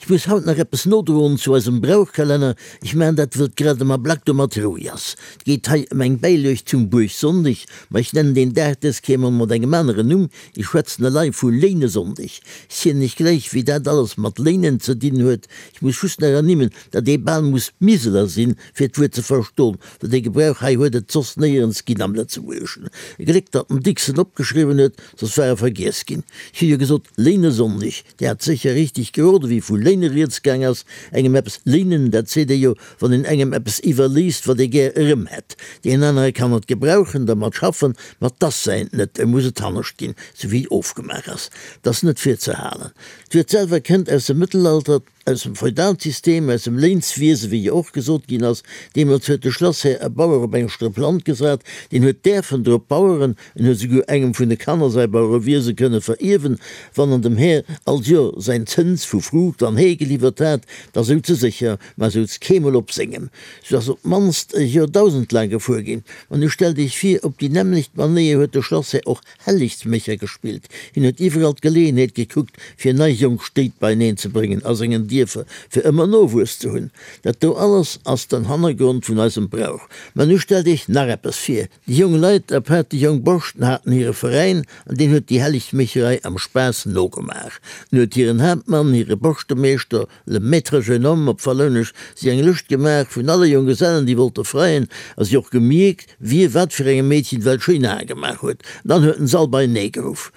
Ech muss haut nach eppes nodroen zu eisem Brauchkalenner. Ech maachen dat, wëll et grad am Ablack domat roueg ass. Et geet hei ëm eng Bäiluecht zum Buergsonndeg, ma ech nennen deen Dag dës Kéier mol mat engem aneren Numm, ech schwätzen elei vu Léinesonndeg. Ech zielen iech gläich, wéi dat alles mat Léinen ze dinn huet. Ech muss just nach ernimmen, datt ee bal muss Miseler sinn, fir d'Wuert ze verstoen, well dee Gebrauch hei huet et soss néierens ginn am Lëtzebuergeschen. E Gléck, datt den Dicks en opgeschriwwen huet, soss war e vergiess ginn. Ech hu jo gesot Léinesonndeg. Dir hat sécher richteg geroden, wéi vu léine rieds gaang ass. Engem eppes léinen, dat seet ee jo, wann een engem eppes iwwerléisst, wat ee gär erëm hätt. Deen anere kann et gebrauchen, dermat schaffen, ma 't ass säint net, e muss et hannescht ginn, sou wéi ofgemaach ass. 't ass net fir ze halen. D'Wuert selwer kënnt aus dem Mëttelalter. Aus dem Feudalsystem, aus dem Léinswiese wéi jo och gesot ginn ass. Deemools huet de Schlasshär e Bauer op eng Strëpp Land gesat, deen huet däerfen drop baueren, en huet esouguer engem vun de Kanner säi Bauerewiese kënne verierwen, wann en dem Här all Joer säin Zëns vu Fruucht an Hee geliwwert hat, da souz e sécher, mä souz keemol op sengem. Sou ass op d'mannst e Joerdausend laang gefuer ginn. Mä nu stellt iech vir, op déi nämmlecht Manéier huet de Schlasshär och Hellegsmécher gespillt. Hien huet iwwerall d'Geleeënheet gekuckt, fir nei jonk Stéit beieneen ze bréngen a sengen Dierfer fir ëmmer Nowuess ze hunn. Dat do alles ass den Hannergrond vun eisem Brauch. Mä nu stellt iech nach eppes vir, Déi jong Leit, apaart déi jong Borschten, haten hire Veräin an deen huet déi Hellegsmécherei am Spaass nogemaach. En huet hiren Haaptmann, hire Borschtemeeschter, Le maître jeune homme, op Wallounesch, si eng Lëscht gemaach vun alle Jonggesellen, déi wollte freien, a si och gemierkt, wie wat fir engem Meedchen well schéin Ae gemaach huet. Dann huet en s'all beienee geruff.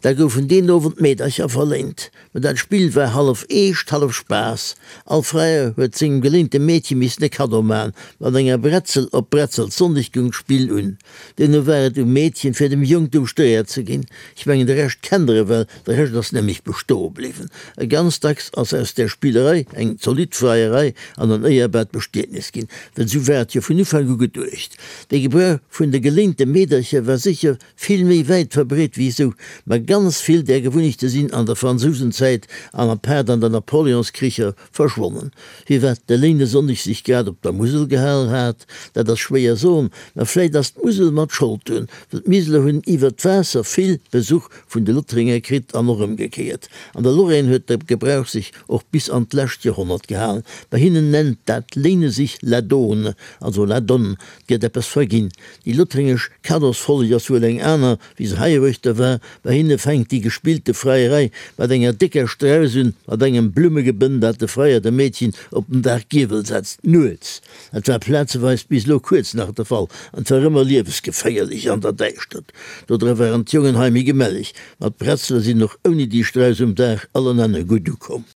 Da goufen deen Owend d'Meedercher verléint. Mä dat Spill war hallef Eescht, hallef Spaass. All Freier huet sengem geléinte Meedche missen e Kaddo man. Mat enger Bretzel. Op Bretzelssonndeg goung d'Spill un. Duerno war et um Meedchen, fir dem Jong d'Ouschtereeër ze ginn. Ech mengen, de Rescht kennt der ewell, de Rescht ass nämlech bestoe bliwwen. A ganz dacks ass aus där Spillerei eng zolidd Freierei an en éierbart Bestietnis ginn, well esou war et jo vun Ufank u geduecht. De Gebrauch vun de geléinte Meedercher war sécher vill méi wäit verbreet wéi esou, ma ganz vill där Gewunnechte sinn an der Fransousenzäit an apaart an der Napoleonskricher Verschwonnen. Firwat de Léinesonndeg sech grad op der Musel gehalen hat, dat ass schwéier soen, ma vläit ass d'Musel mat Schold drun, well d'Miseler hunn iwwert d'Waasser vill Besuch vun de Lothringer kritt an och ëmgekéiert. An der Lorraine huet de Gebrauch sech och bis an d'lescht Joerhonnert gehalen. Bei hinnen nennt dat Léine sich la donne, also la donne, 't gëtt eppes verginn. Déi lothringesch Kaddosfolleg ass wuel eng aner, Wéi se heiruechter war, bei hinne fänkt déi gespillte Freierei mat enger décker Strauss un, mat engem Blummegebënn, dat de Freier dem Meedchen op den Dag Giewel setzt, nuets. Dat war plazeweis bis elo kuerz nach de Fall, an 't war ëmmer liewesgeféierlech an der Däischtert. Dodra waren d'Jongen hei méi gemelleg, ma d'Bretzele sinn och ouni déi Strauss um Dag allenaner gutt ukomm.